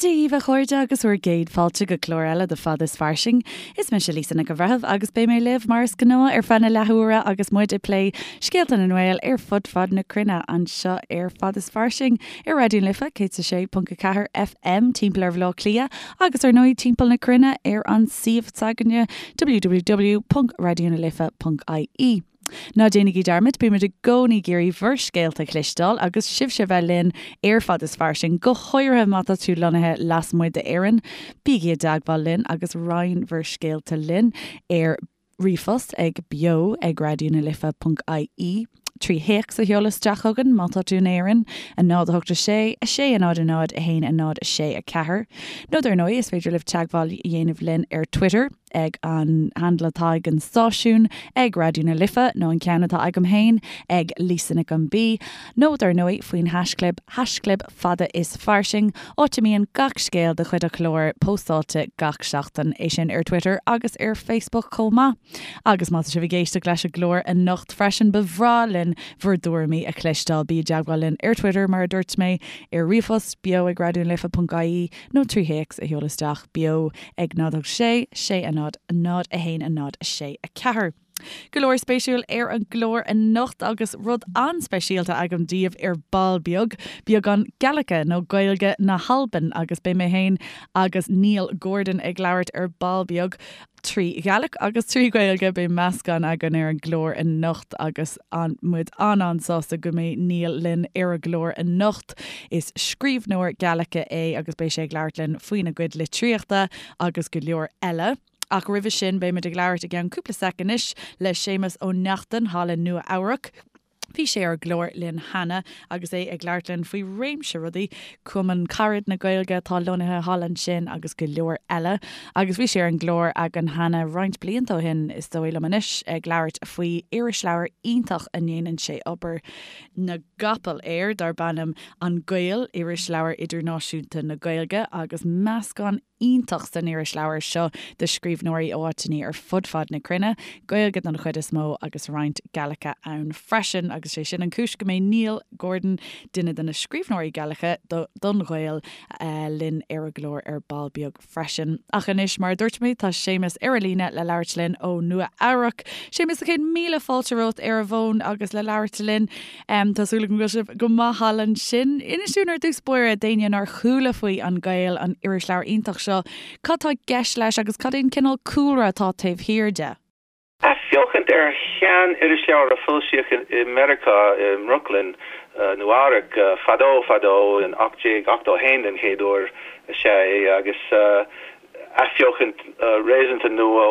Dia dhaoibh a chairde agus bhur gcéad fáilte go clár eile de Fad is Fairsing. Is mise Lisa Nic an Bhreithimh agus beidh mé libh mar is gnáth ar feadh na leathuaire agus muid ag plé scéalta na nGael ar fud fad na cruinne anseo ar Fad is Fairsing ar Raidió na Life 106.4 FM timpeall ar Bhaile Átha Cliath agus ar ndóigh timpeall na cruinne ar an suíomh s'againne www.raidionalife.ie. Ná déanaigí dearmad, bímid i gcónaí ag iarraidh bhur scéalta a chloisteáil agus sibhse a bheith linn ar Fad is Fairsing, go háirithe má tá tú lonnaithe lasmuigh d'Éirinn. Bígí i dteagmháil linn agus roinn bhur scéalta linn ar ríomhphost ag beo ag raidionalife.ie, 3 théacs a sheoladh isteach chugainn má tá tú in Éirinn, 0 8 6 6 0 0 1 0 6 4. Nó dar ndóigh, is féidir libh teagmháil a dhéanamh linn ar Twitter. ag an handle atá ag an stáisiún, ag Raidió na Life, nó an ceann atá agam féin, ag Lisa Nic an B, nó dar ndóigh faoin haischlib, haischlib fada is fairsing, áit a mbíonn gach scéal de chuid an chláir póstáilte gach seachtain, é sin ar Twitter agus ar Facebook chomh maith. Agus má tá sibh ag éisteacht leis an gclár anocht freisin, ba bhreá linn bhur dtuairimí a chloisteáil. Bí i dteagmháil linn ar Twitter, mar a dúirt mé, ar ríomhphost, beo ag raidionalife.ie, nó 3 théacs a sheoladh isteach, beo ag 0 6 6 0 0 1 0 6 4. Go leor spéisiúil ar an gclár anocht agus rud an-speisialta agam daoibh ar ball beag, beagán Gaeilge nó Gaeilge na hAlban agus beidh mé féin agus Neil Gordon ag labhairt ar ball beag. 3 Ghaeilge agus 3 Ghaeilge, beidh meascán againn ar an gclár anocht agus tá muid an-an-sásta go mbeidh Neil linn ar an gclár anocht. Is scríbhneoir Gaeilge é agus beidh sé ag labhairt linn faoina gcuid litríochta agus go leor eile. Ach roimhe sin beimid ag labhairt i gceann cúpla sec anois le Séamus Ó Neachtain thall i Nua Eabhrac. Bhí sé ar an gclár linn cheana agus é ag labhairt linn faoi réimse rudaí, Cumann Carad na Gaeilge atá lonnaithe thall ansin agus go leor eile. Agus bhí sé ar an gclár againn cheana roinnt blianta ó shin, is dóigh liom anois, ag labhairt faoi irisleabhar iontach a ndéanann sé obair na gcapall air, darb ainm An Gael, Irisleabhar Idirnáisiúnta na Gaeilge, agus meascán iontach san irisleabhar seo de scríbhneoirí ó áiteanna ar fud fad na cruinne, Gaeilge don chuid is mó agus roinnt Gaeilge ann freisin agus sé sin an cúis go mbeidh Neil Gordon, duine de na scríbhneoirí Gaeilge don Ghael, linn ar an gclár ar ball beag freisin. Ach anois, mar a dúirt mé, tá Séamus ar an líne le labhairt linn ó Nua Eabhrac. Séamus, a chéad míle fáilte romhat ar an bhfón agus le labhairt linn. Tá súil agam go bhfuil sibh go maith thall ansin. Inis dúinn ar dtús báire, d'éinne nár chuala faoi An Gael, an irisleabhar iontach seo, cad tá i gceist leis agus cad é an cineál cúlra atá taobh thiar de? Athbheochaint ar shean-irisleabhar a foilsíodh i Meiriceá, i mBrooklyn, Nua Eabhrac, fadó fadó, in 1881 den chéad uair is ea é, agus athbheochaint réasúnta nua ó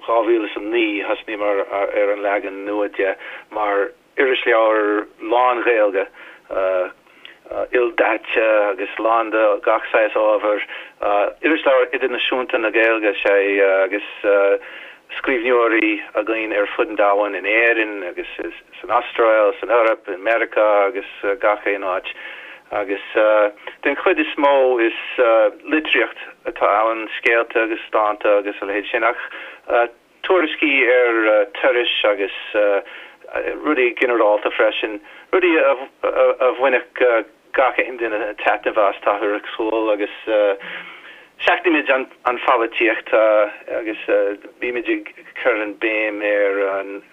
2009, thosnaíomar ar an leagan nua de mar Irisleabhar lán-Ghaeilge, ildaite agus lán de gach saghas ábhair. Irisleabhar idirnáisiúnta na Gaeilge is ea é agus scríbhneoirí againn ar fud an domhain, in Éirinn agus san Astráil, san Eoraip, i Meiriceá agus gach aon áit. Agus den chuid is mó is litríocht atá ann, scéalta agus dánta agus a leithéid sin ach tuairiscí ar turais agus rudaí ginearálta freisin, rudaí a bhainfeadh gach aon duine taitneamh as, táthar ag súil, agus seachnaímid an pholaitíocht agus bímid ag cur an béim ar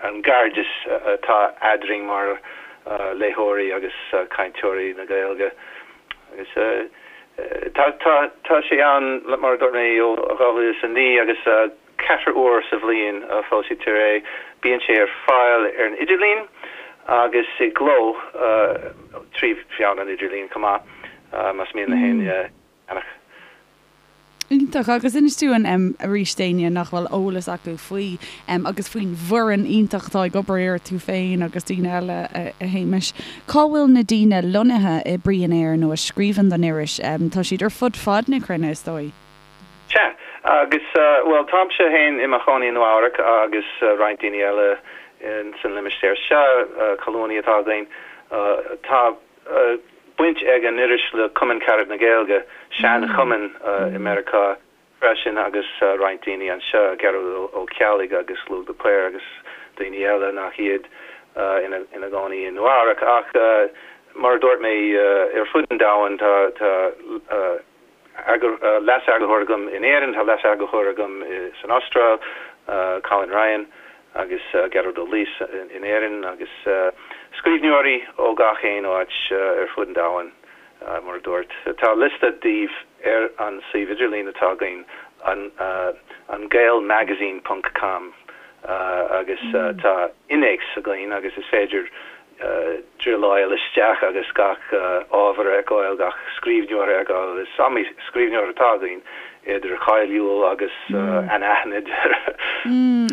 an gcairdeas atá eadrainn mar léitheoirí agus cainteoirí na Gaeilge. Agus tá sé ann, mar a dúirt mé, ó 2009 agus Ceithre uair sa bhliain a foilsítear é. Bíonn sé ar fáil ar an idirlíon agus i gcló trí mheán an idirlín chomh maith, más mian le héinne é a cheannach. Iontach. Agus inis dúinn arís d'éinne nach bhfuil eolas acu faoi agus faoin bhfoireann iontach atá ag obair air, tú féin agus daoine eile, a Shéamais, cá bhfuil na daoine lonnaithe a oibríonn air nó a scríobhann don iris? Tá siad ar fud fad na cruinne, is dóigh. Sea, agus, bhuel, táimse féin i mo chónaí i Nua Eabhrac agus roinnt daoine eile san limistéar seo, colúnaí atá againn. Tá baint ag an iris le Cumann Carad na Gaeilge, sean-chumann i Meiriceá freisin, agus roinnt daoine anseo, Gearóid Ó Ceallaigh agus Lugh de Paor agus daoine eile nach iad ina gcónaí i Nua Eabhrac. Ach mar a dúirt mé, ar fud an domhain tá. Leas-eagarthóir agam in Éirinn, tá leas-eagarthóir agam san Astráil, Colin Ryan, agus Gearóid Ó Laoise in Éirinn, agus scríbhneoirí ó gach aon áit ar fud an domhain, mar a dúirt. Tá liosta díobh ar an suíomh idirlín atá againn, an gaelmagazine ponc com, agus tá innéacs againn agus is féidir druileáil isteach agus gach ábhar a fheiceáil, gach scríbhneoir a fheiceáil. Is iomaí scríbhneoir atá againn, idir cháiliúil agus anaithnid.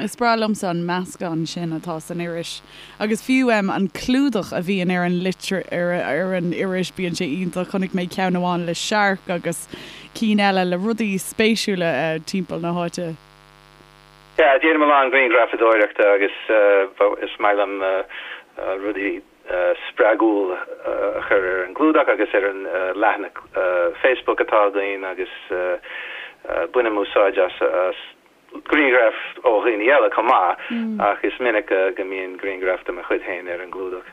Is breá liomsa an meascán sin atá san iris. Agus fiú an clúdach a bhíonn ar an litir, ar an iris, bíonn sé iontach. Chonaic mé ceann amháin le searc agus cinn eile le rudaí spéisiúla timpeall na háite. Yeah, déanaim a lán grianghrafadóireachta agus is maith liom rudaí spreagúil a chur ar an gclúdach agus ar an leathanach Facebook atá againn agus bainim úsáid as grianghraif ó dhaoine eile chomh maith ach is minic go mbíonn grianghraf de mo chuid féin ar an gclúdach.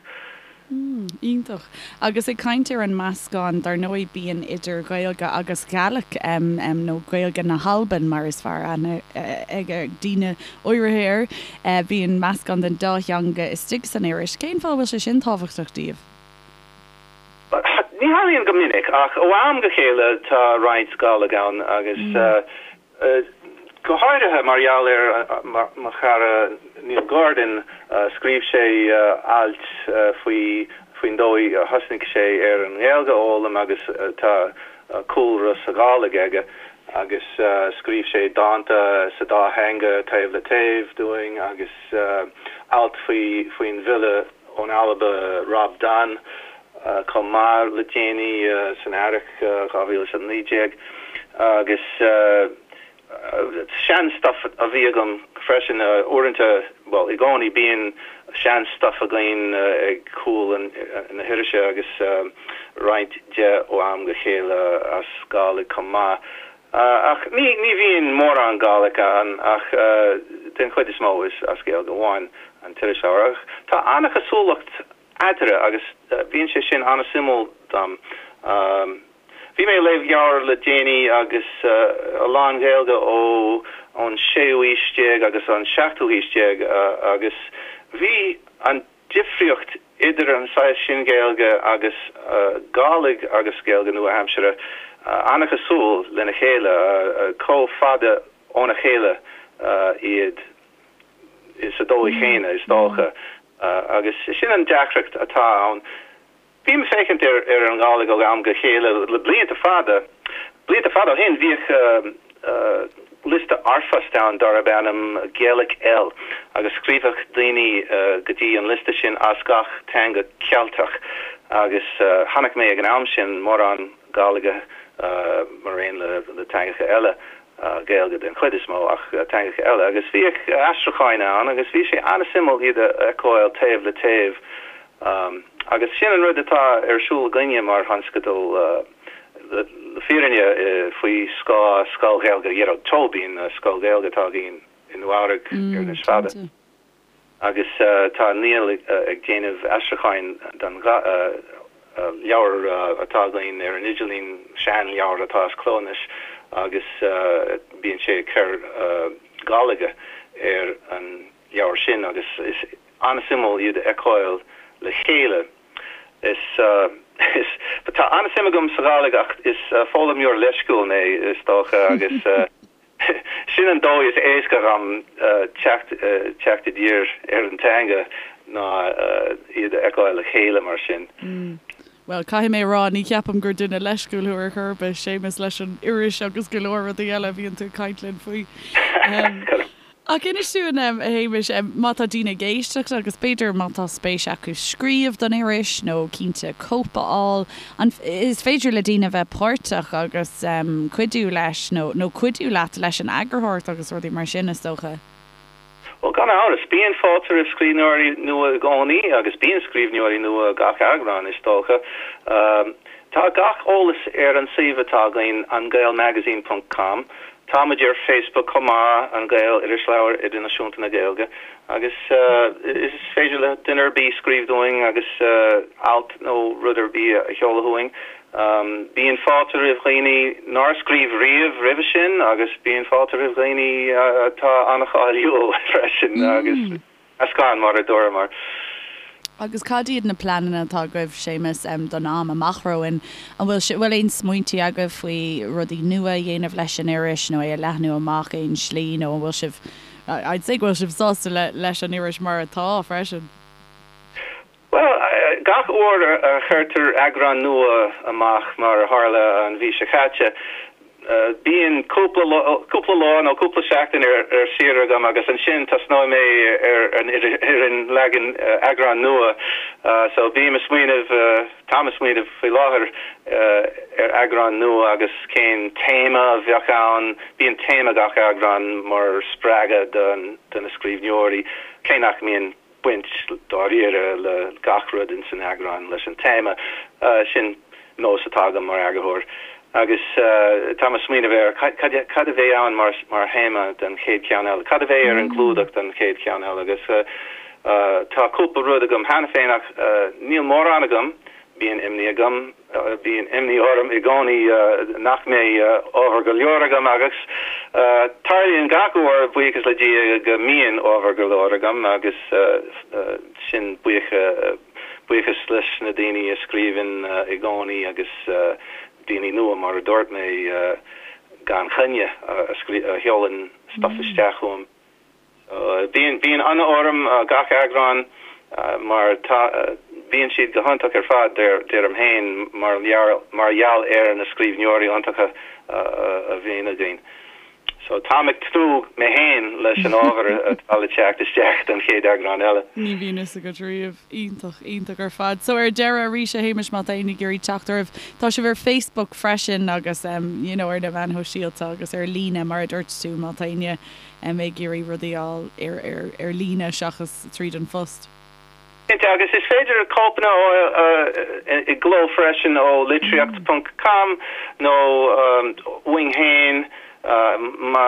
Iontach. Agus ag caint ar an meascán, dar ndóigh bíonn idir Ghaeilge agus Ghàidhlig, nó Gaeilge na hAlban mar is fearr aithne ag daoine áirithe air, bíonn meascán den dá theanga istigh san iris. Cén fáth a bhfuil sé sin tábhachtach daoibh? Ní tharlaíonn go minic ach ó am go chéile tá roinnt Gàidhlig ann agus Go háirithe mar gheall ar mo chara Neil Gordon, scríobh sé ailt faoi faoin dóigh a thosnaigh sé ar an nGaeilge a fhoghlaim agus tá cúlra sa Ghàidhlig aige agus scríobh sé dánta sa dá theanga taobh le taobh dúinn agus alt faoi faoin bhfile ón Alba Rob Donn chomh maith le déanaí san Earrach 2019 agus sean-stuif a bhí agam freisin uaireanta, bhuel i gcónaí bíonn sean-stuif againn ag cúl na hirise agus roinnt de ó am go chéile as Gàidhlig chomh maith. Ach ní ní bhíonn mórán Gàidhlig ann ach den chuid is mó is as Gaeilge amháin an t-iriseoir. Ach tá an-chosúlacht eatarthu agus bíonn sé sin an-suimiúil dom. Bhí mé ag léamh leabhar le déanaí agus a lán Gaeilge ó ón séú haois déag agus an seachtú haois déag agus bhí an difríocht idir an saghas sin Gaeilge agus Gàidhlig agus Gaeilge nua-aimseartha an-chosúil lena chéile, chomh fada óna chéile iad sa dóigh chéanna, is dócha. Agus sin an deacracht atá ann. Bím ag féachaint ar an nGàidhlig ó am go chéile le blianta fada. Blianta fada ó shin bhíodh liosta r-phost ann darb ainm Gaelic L agus scríobhadh daoine go dtí an liosta sin as gach teanga Ceilteach agus chonaic mé ag an am sin mórán Gàidhlige mar aon le teangacha eile, Gaeilge den chuid is mó ach teangacha eile agus bhíodh aistriúcháin ann agus bhí sé an-suimiúil iad a fheiceáil taobh le taobh. Agus sin an rud atá ar siúl againne mar thionscadal, le fírinne, faoi scáth Scoil Ghaeilge Ghearóid Tóibín, scoil Ghaeilge atá againn i Nua Eabhrac anois le fada. Agus tá Niall ag déanamh aistriúcháin don leabhar atá againn ar an idirlíon, seanleabhar atá as cló anois, agus bíonn sé ag cur Gàidhlige ar an leabhar sin agus is an-suimiúil iad a fheiceáil le chéile. Is, is, tá an-suim agam sa Ghàidhlig ach is foghlaimeoir leisciúil mé, is dócha, agus sin an dóigh is éasca dhom teacht, teacht i dtír ar an teanga ná iad a fheiceáil le chéile mar sin. Bhuel, caithfidh mé a rá, ní cheapaim gur duine leisciúil thú ar chor ar bith, Séamus, leis an iris agus go leor rudaí eile a bhíonn tú ag caint linn faoi. Ach inis dúinn, a Shéamais, má tá daoine ag éisteacht agus b'fhéidir má tá spéis acu scríobh don iris nó cinnte cóip a fháil, an is féidir le daoine bheith páirteach agus cuidiú leis nó nó cuidiú leat leis an eagarthóireacht agus rudaí mar sin, is dócha? Bhuel, gan amhras, bíonn fáilte roimh scríbhneoirí nua i gcónaí agus bíonn scríbhneoirí nua gach eagrán, is dócha. Tá gach eolas ar an suíomh atá againn, angaelmagazine ponc com. Tá muid ar Facebook chomh maith, An Gael, Irisleabhar Idirnáisiúnta na Gaeilge, agus is féidir le duine ar bith scríobh dúinn agus alt nó rud ar bith a sheoladh chugainn. Bíonn fáilte roimh dhaoine nár scríobh riamh roimhe sin agus bíonn fáilte roimh dhaoine atá an-cháiliúil freisin agus meascán mar a dúramar. Agus cad iad na pleananna atá agaibh, Séamus, don am amach romhainn? An bhfuil bhfuil aon smaointí agaibh faoi rudaí nua a dhéanamh leis an iris nó é a leathnú amach aon slí nó an bhfuil sibh, I'd say go bhfuil sibh sásta leis an iris mar atá freisin? Bhuel, gach uair a chuirtear eagrán nua amach, mar a tharla an mhí seo caite, bíonn cúpla cúpla lá nó cúpla seachtain ar saoire agam agus ansin tosnóidh mé ar an ar an leagan eagrán nua. So bím ag smaoineamh, táim ag smaoineamh faoi láthair ar eagrán nua agus cén téama a bheadh ann. Bíonn téama gach eagrán mar spreagadh do na scríbhneoirí, cé nach mbíonn baint dáiríre le gach rud ins an eagrán leis an téama. Sin nós atá agam mar eagarthóir. Agus táim ag smaoineamh ar cad a bheidh ann mar théama don chéad cheann eile, cad a bheidh ar an gclúdach don chéad cheann eile agus tá cúpla rud agam cheana féin ach níl mórán agam, bíonn imní agam. Bíonn imní orm i gcónaí nach mbeidh ábhar go leor agam agus tarlaíonn gach uair, buíochas le Dia, go mbíonn ábhar go leor agam agus sin buíochas leis na daoine a scríobhann i gcónaí agus daoine nua mar a dúirt mé gan choinne a sheolann stuff isteach chugam. Bíonn bíonn ionadh orm gach eagrán mar tá bíonn siad go hiontach ar fad deirim féin mar mar gheall ar na scríbhneoirí iontacha a bhíonn againn. So táim ag tnúth mé féin leis an ábhar atá le teacht isteach don chéad eagrán eile. Ní bhíonn fhios agat riamh. Iontach, iontach ar fad. So ar deireadh arís a Shéamais má tá éinne ag iarraidh teacht oraibh, tá sibh ar Facebook freisin agus you know ar na meáin shóisialta agus ar líne mar a dúirt tú má tá éinne ag iarraidh rudaí a fháil ar líne seachas tríd an phost. Cinnte, agus is féidir cóipeanna a fháil i gcló freisin ó litríocht ponc com nó uainn féin má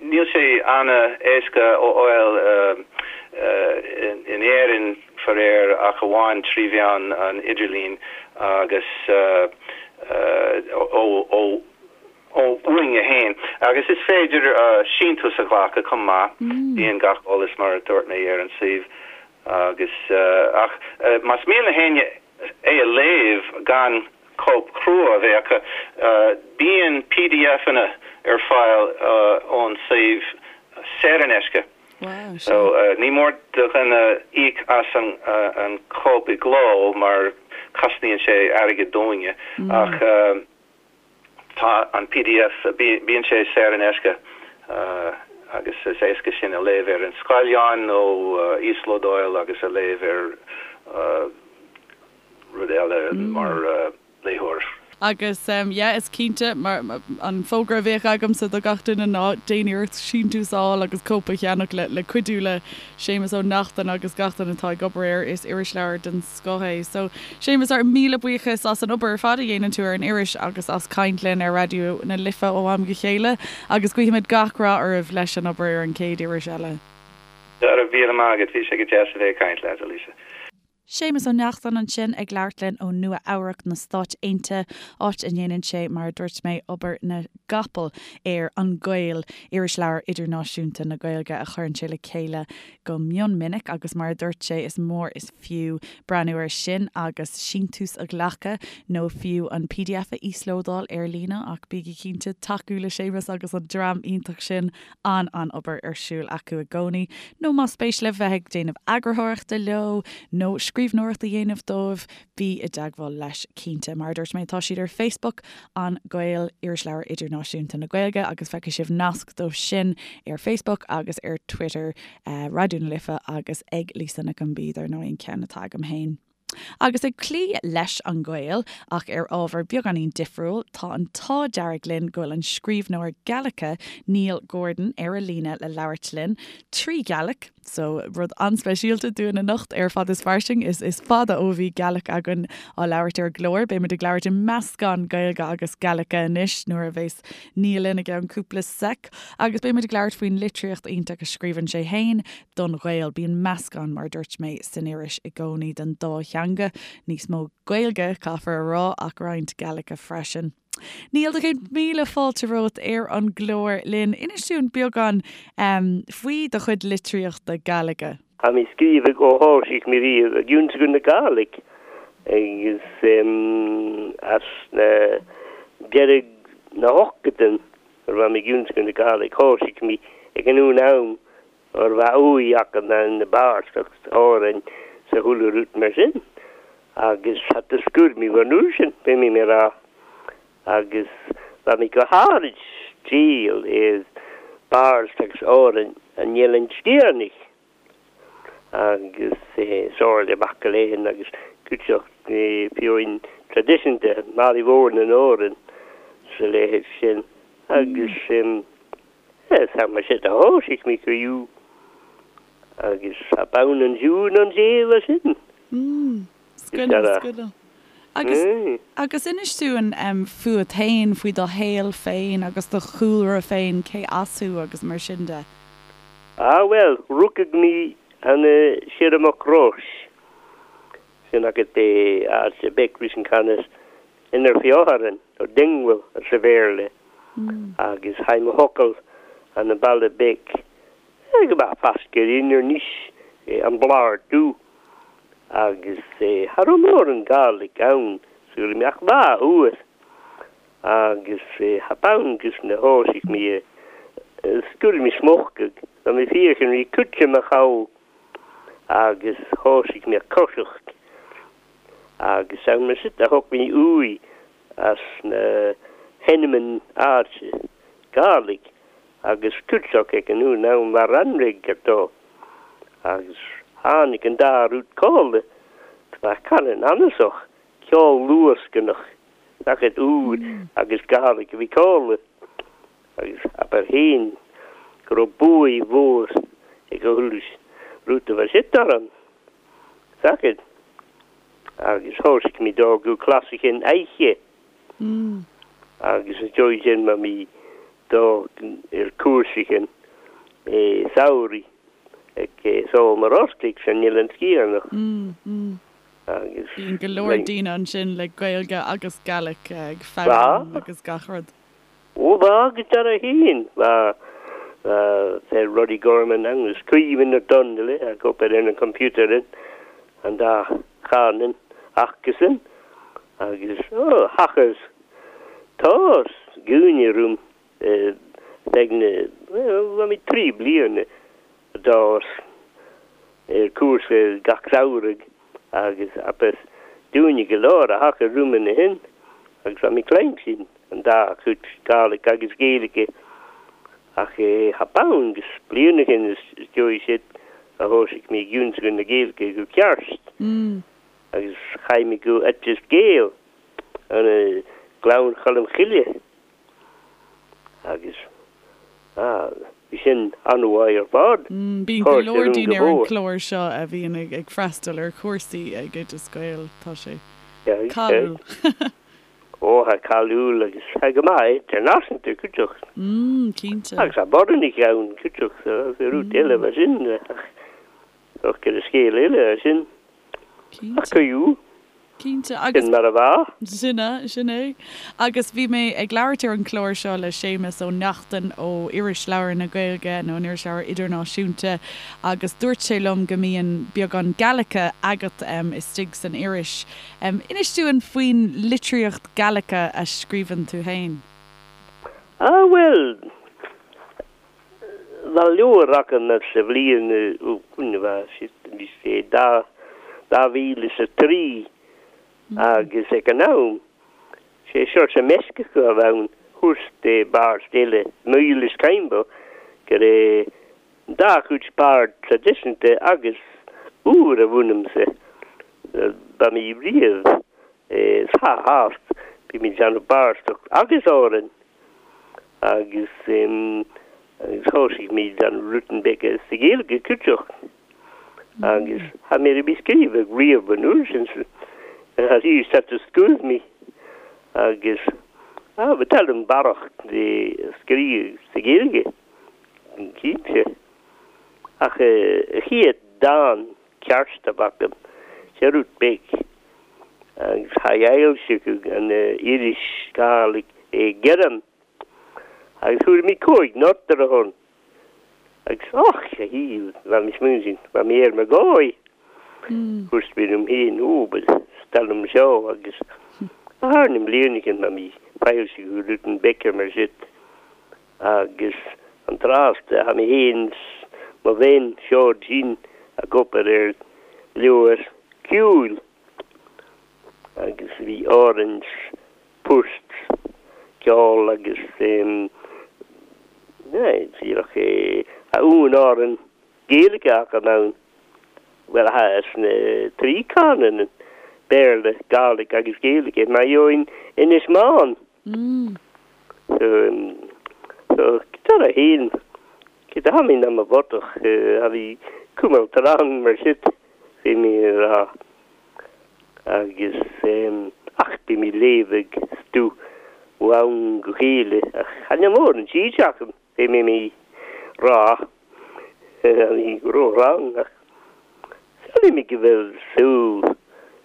níl sé an-éasca a fháil in Éirinn faraor ach amháin trí mheán an idirlín agus ó uainne féin. Agus is féidir síntiús a ghlacadh chomh maith. Bíonn gach eolas, mar a dúirt mé, ar an suíomh. Agus, ach más mian le héinne é a léamh gan cóip chrua a bheith acu, bíonn PDFanna ar fáil ón suíomh saor in aisce. So, ní mór do dhuine íoc as an chóip i gcló mar cosnaíonn sé airgead dúinne, ach. Tá an pdf, bíonn sé saor in aisce agus is éasca sin a léamh ar an scáileán nó íoslódáil agus a léamh ar rud eile mar léitheoir. Agus yeah, is cinnte, mar an fógra a bheadh agamsa do gach duine ná déan iarracht síntiús a fháil agus cóip a cheannach le cuidiú le Séamus Ó Neachtain agus gach duine atá ag obair air. Is irisleabhar den scoth é. So, Séamus, ár míle buíochas as an obair ar fad a dhéanann tú ar an iris agus as caint linn ar Raidió na Life ó am go chéile agus guímid gach rath oraibh leis an obair ar an chéad iris eile. Go raibh míle maith agat, bhí sé go deas a bheith ag caint leat, a Lisa. Séamus Ó Neachtain ansin ag labhairt linn ó Nua Eabhrac na Stáit Aontaithe, áit a ndéanann sé, mar a dúirt mé, obair na gcapall ar An Gael, irisleabhar idirnáisiúnta na Gaeilge a chuireann sé le chéile go mion minic agus mar a dúirt sé is mór is fiú breathnú air sin agus síntiús a ghlacadh nó fiú an pdf a íoslódáil ar líne ach bígí cinnte tacú le Séamus agus an dream iontach sin, an-an-obair ar siúl acu i gcónaí nó más spéis libh bheith ag déanamh eagarthóireachta leo nó scríbhneoireacht a dhéanamh dóibh bí i dteagmháil leis cinnte. Mar a dúirt mé tá siad ar Facebook, An Gael, Irisleabhar Idirnáisiúnta na Gaeilge agus feicfidh sibh nasc dóibh sin ar Facebook agus ar Twitter, Raidió na Life agus ag Lisa Nic an B dar ndóigh an ceann atá agam féin. Agus ag cloí leis An Gael, ach ar ábhar beagáinín difriúil, tá an t-ádh dearg linn go bhfuil an scríbhneoir Gaelice Neil Gordon ar an líne le labhairt linn, trí Ghaelic. So, rud an-speisialta dúinn anocht ar Fad is Fairsing. Is is fada ó bhí Gaelic againn á labhairt ar an gclár. Beidh muid ag labhairt i meascán Gaeilge agus Gaelice anois nuair a bheas Niall linn i gceann cúpla sec. Agus beidh muid ag labhairt faoin litríocht iontach a scríobhann sé fhéin don Ghael. Bíonn meascán, mar a dúirt mé, san iris i gcónaí den dá theanga. Níos mó Gaeilge, caithfear a rá, ach roinnt Gaelice freisin. Niall, do chéad míle fáilte romhat ar an gclár linn. Inis dúinn beagán faoi do chuid litríochta Gaeilge. Tha mi sgrìobhadh o thoisigh mi riamh ag ionnsagadh na Gàidhlig agus as na deireadh na hochtadan nuair bha mi ag ionnsagadh na Gàidhlig thoisigh mi ag an un am ur bha uaidh aca na bàrstacht Àrainn 's a chuile rud mar sin agus tha do sgùir mi bhur n-uair sin, bheidh mi mé rá, agus bha mi go hàraid triall air bàrst agus Àrainn an Eilean Sgitheanach agus Somhairle Mac Aléin agus cúiteach fiúin traidisiúnta Màiri Mhòr nan Òran 's a leithéid sin agus Tá mar sin a thoisigh mé criú agus tá bonn an ziúin an saol as sin. Scoileanna, scoileanna. Agus, agus inis dúinn fút féin, faoi do shaol féin agus do chúlra féin, cé as thú agus mar sin de. Ah bhuel, rugadh mé ann siar i Mucrois, sin agat é áit a bheadh ris an canas Inner Feotharan, nó Dingwall sa Bhéarla, agus thaidh mo thocal an an baile beag go maith fascadh inner níos an Bhlár Dubh agus tha raibh mórán Gàidhlig ann sula mbeadh lá uair agus tha bonn gus na thoisigh mé a sgurr mé smuchadh tá mé féachan rí cúite mo chabhail agus thoisigh mé a coiseacht agus am sin a thug mé uaidh as na hEnneman áite Gàidhlig agus cúiteach ag an uair ann mar anraidh ar dó agus tháinig an dá rud cóile tá canann anasach ceol luascanach sacair úr agus Gàidhlig a bhí cóile agus abair féin go raibh buaidh mhór ag a thuilleadh rud a bheith sit orm. Sacair agus thoisigh mé d'fhágadh clasaichean oidhche agus is dóigh sin ma mí do ar cúrsachean samhraidh ag Sól mar Ostaigh san Oileán Sgitheanach agus Bíonn go leor daoine ansin le Gaeilge agus Gaelic ag foghlaim agus gach rud. Ó bha agus dar a fhéin bha fer Roddy Gorman agus Caoimhín Ó Donnghaile ag obair ar an computer in an dá charnan acusan agus ó thachas tás gúine rúm feadh na bhuel bha mé tri bliana d'fhás ar cúrsa gach samhradh agus apas dúine go leor a thaca rúm ina shin agus bha mé cluinstin an dá chuid Gàidhlig agus Gaeilge ach tha bonn gus bliain ó shin is dóigh siad a thoisigh mé ag ionnsagadh na Gaeilge go ceart agus chaith mé go Oideas Gael an Gleann Cholm Chille agus bhí sin an-mhaith ar fad. Bíonn go leor daoine ar an gclár seo a bhíonn ag freastal ar chúrsaí ag Oideas Gael, tá sé cáiliúil. Ó, tá cáiliúil agus tá go maith idirnáisiúnta, cúiteach. Mm, cinnte. Agus tá Boranach ann, cúiteach, so is rud eile mar sin, ach ach gur scéal eile é sin. Cinnte. Ach cuiú. Cinnte, agus. Sin mar a bheadh. Sin é, sin é. Agus bhí mé ag labhairt ar an chlár seo le Séamus Ó Neachtain ó Irisleabhar na Gaeilge, nó an Irisleabhar Idirnáisiúnta, agus dúirt sé liom go mbíonn beagán Gaelice agat istigh san iris. Inis dúinn faoin litríocht Gaelice a scríobhann tú féin. Ah bhuel, bha leabhar agam sa bhliain bhí sé 2003 agus ag an am sé Seoirse Meisceach a bh' ann thuas de bharr eile Myles Caimbeul gur é dá chuid bard traidisiúnta agus úr a bh'ionamsa. Ba mí riamh sa hást bhí mé ag déanamh barstacht agus Árainn agus. Agus thosaigh mé an rutan beag sa Ghaeilge cuideach. Agus tha mi ri scríobhadh riamh an uair sin tha sí set to scúth mi agus ah ba tal barrach de scríobh sa Ghaeilge cinnte. Ach a chéad dán ceart a b'agam sé rud beag agus tha fhoilsiodh an iris Gàidhlig i gCeirim agus fuair mé 5 nóta ar a shon. Agus och, a shíl, bha mi smaointigh, bha mi air mo dhóigh. Dúirt mé liom féin, ó, ba stail liom seo agus thar na mblianacha bha mi foilsiodh rudan beag mar sin agus an tráth tha mi féin 's mo bhean seod sin ag obair ar leabhar ceoil agus bhí orainn poirt, ceol agus díreach a un amhrán Gaeilge acu ann. Bhuel, tha sna trí canúin, Béarla, Gàidhlig agus Gaeilge, mar gheobhainn Inis Meáin. So, so, dar a haon, cé tha mi na mo bhodach, tha mi cumail tráth mar sin, bhí mé ag rá. Agus ach bhí mé léamh ag stú ó am go chéile ach chan eil mórán tríd agam, bhí mé mí rá bhí ró-rang ach samhlaím go bhfuil súil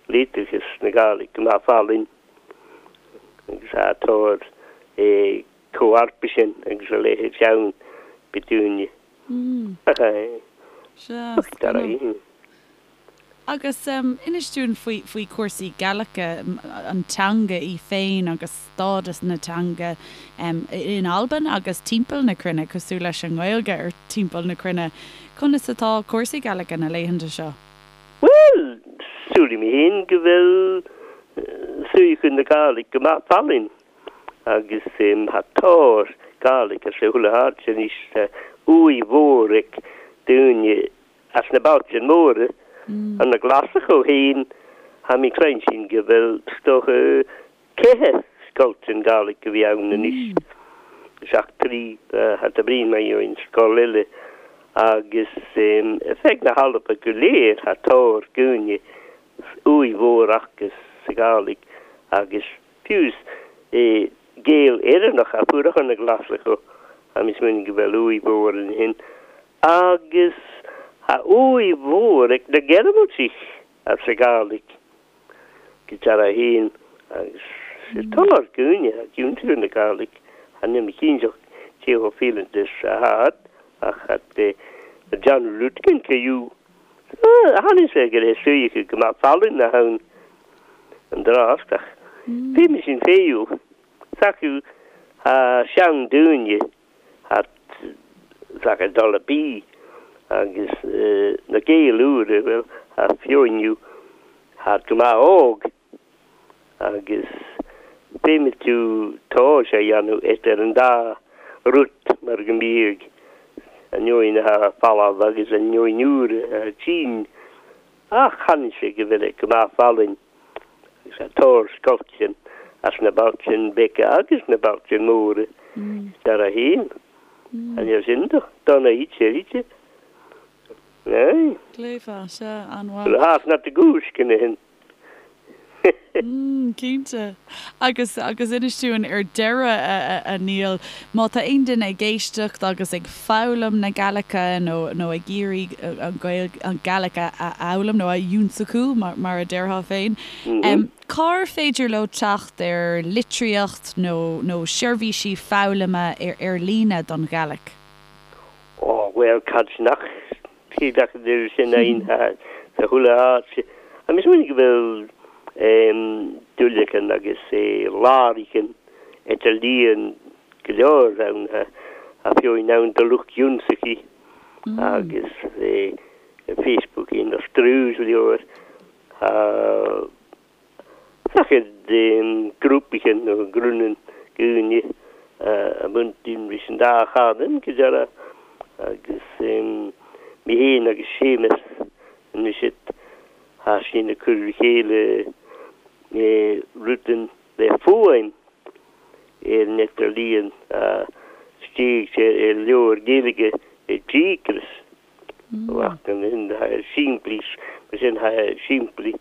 litreachas na Gàidhlig go maith fallaing agus atá é comharpa sin agus a leithéid ann b'dúine. Ach Sea, ach dar a. Agus inis dúinn faoi faoi chúrsaí Gaelice, an teanga í féin agus stádas na teanga in Albain agus timpeall na cruinne, cosúil leis an nGaeilge ar timpeall na cruinne. Conas atá cúrsaí Gaelice na laethanta seo? Bhuel, samhlaím féin go bhfuil suíochán na Gàidhlig go maith fallaing agus tha tóir Gàidhlig as a chuile háit anois, tá uaidh mhór ag daoine As na bailte móra, an na Glaschú féin, tha mi cluinsinn go bhfuil 's dócha ceithe scoiltean Gàidhlig a bhí ann anois, seacht dtrí tha tá brí mar gheobhainn scoil eile agus feadh na hAlba go léir tha tóir dhaoine uaidh mhór acu sa Ghàidhlig agus fiú Gael Éireannach a fuair na Glaschú tha mi smaoineamh go bhfuil uaidh mhór ansin Agus tha uaidh mhór ag na Gearmaltaigh as a Gàidhlig go deara fhéin agus is tóir dhaoine a iontú na Gàidhlig chan eil mi cinnteach cé chomh fileanta is a tha ach a John Rutkin fiú tháinig sé go raibh suíochán go maith fallaing a ann an drácht ach bhí mé sin féiú s'acu a seandaoine thart sacar dul a bí agus na Gaeil úra, bhuel, a fiúiniú thart go maith óg agus féadfaidh tú tomhas a dhéanamh idir an dá rud mar go mbíodh an neoin atá folamh agus an neoin úr atá tinn ach chonaic sé go bhfuil go maith fallaing. Agus a tóir scoilteann as na bailte beaga agus na bailte móra dar a haon. An é sin do dona iad sé Aye. Gléfa, sea, an-mhaith. Bhuel, thas not the goose can hin. Cinnte. Agus, agus inis dúinn ar deireadh, a Neil, má tá aon duine ag éisteacht agus ag foghlaim na Gaelice nó, nó ag iarraidh an Ghaeilge, an Gàidhlig a fhoghlaim nó a ionnsachú, mar, mar a déarfá féin, cár féidir leo teacht ar litríocht nó, nó seirbhísí foghlama ar, ar líne don Ghàidhlig? Ó, bhuel, cad nach Cé acu de sin aon sa chuile áit. Agus is minic go bhfuil duilleacan agus láraicin idirlíon go leor ann a fiú ann do lucht ionsaithe agus Facebook ina strús leor. Sacair grúpaithe nó grúnan daoine a mhúinteann leis an dá chanúint go deireadh agus mé féin agus Séamus anois tá sinn ag cur le chéile rudan le fuaim ar an idirlíon a. Istigh i leabhar Gaeilge i díocras simplí mar sin simplí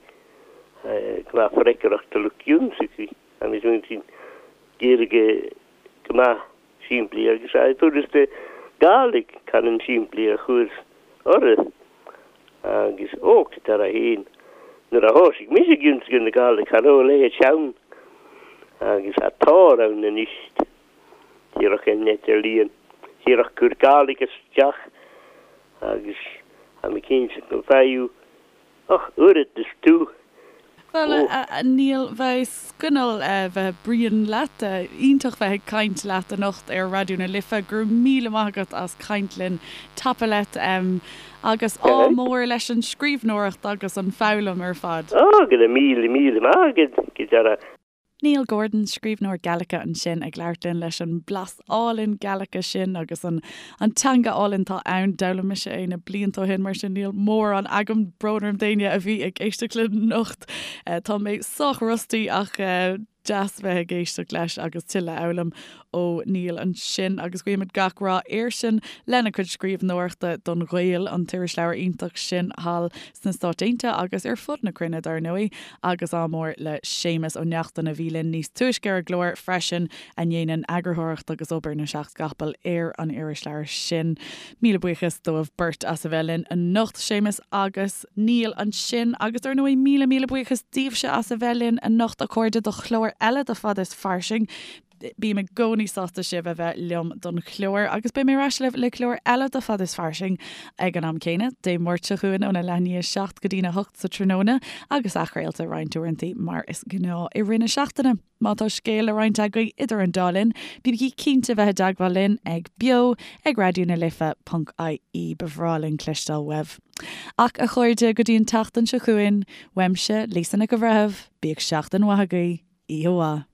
gnáth freagracht a lucht ionsaí agus sin Gaeilge go maith simplí agus furasta Gàidhlig canann simplí a chur orthu agus och dar a fhéin nuair a thosaigh mise ag ionsaí na Gàidhlig cha raibh a leithéid ann agus atá ann anois. Díreach an idirlíon, díreach cur Gàidhlig isteach agus tá mé cinnte go bhfaigheadh och oiread is tú. Bhuel, a Neil, bheadh coinneal bheith bruíon leat. Iontach bheith ag caint leat anocht ar Raidió na Life. Go raibh míle maith agat as caint linn. Tapadh leat agus ádh mór leis an scríbhneoireacht agus an foghlaim ar fad. Á, go raibh míle míle maith agat, go dara. Neil Gordon, scríbhneoir Gaelice ansin ag labhairt linn leis an blas álainn Gaelice sin agus an an teanga álainn atá ann. D'fhoghlaim mise é na blianta ó shin mar sin níl mórán agam, brón orm d'éinne a bhí ag éisteacht linn anocht. Tá mé sách rusty ach deas bheith ag éisteacht leis agus tuilleadh a fhoghlaim ó Neil ansin agus guímid gach rath airsean lena chuid scríbhneoireachta don Ghael, an t-irisleabhar iontach sin thall sna Stáit Aontaithe agus ar fud na cruinne dar ndóigh, agus ádh mór le Séamus Ó Neachtain a bhí linn níos túisce ar an gclár freisin, a ndéanann eagarthóireacht agus obair na seacht gcapall ar an irisleabhar sin. Míle buíochas dóibh beirt as a bheith linn anocht, Séamus agus Neil ansin, agus dar ndóigh míle míle buíochas daoibhse as a bheith linn anocht, a chairde, do chlár eile de Fada is Fairsing. Bím i gcónaí sásta sibh a bheith liom don chlár agus beidh mé ar ais libh le clár eile de Fada is Fairsing ag an am céanna, Dé Máirt seo chugainn óna leath i ndiaidh a 7 go dtína 8 sa tráthnóna agus athchraolta roinnt uaireanta mar is gnáth i rith na seachtaine. Má tá scéal le roinnt agaibh idir an dá linn, bígí cinnte bheith i dteagmháil linn ag beo ag raidió na life ponc ie Ba bhreá linn cloisteáil uaibh. Ach a chairde, go dtí an tseachtain seo chugainn, uaimse, Lisa Nic an Bhreithimh, bíodh seachtain mhaith agaibh, oíche mhaith.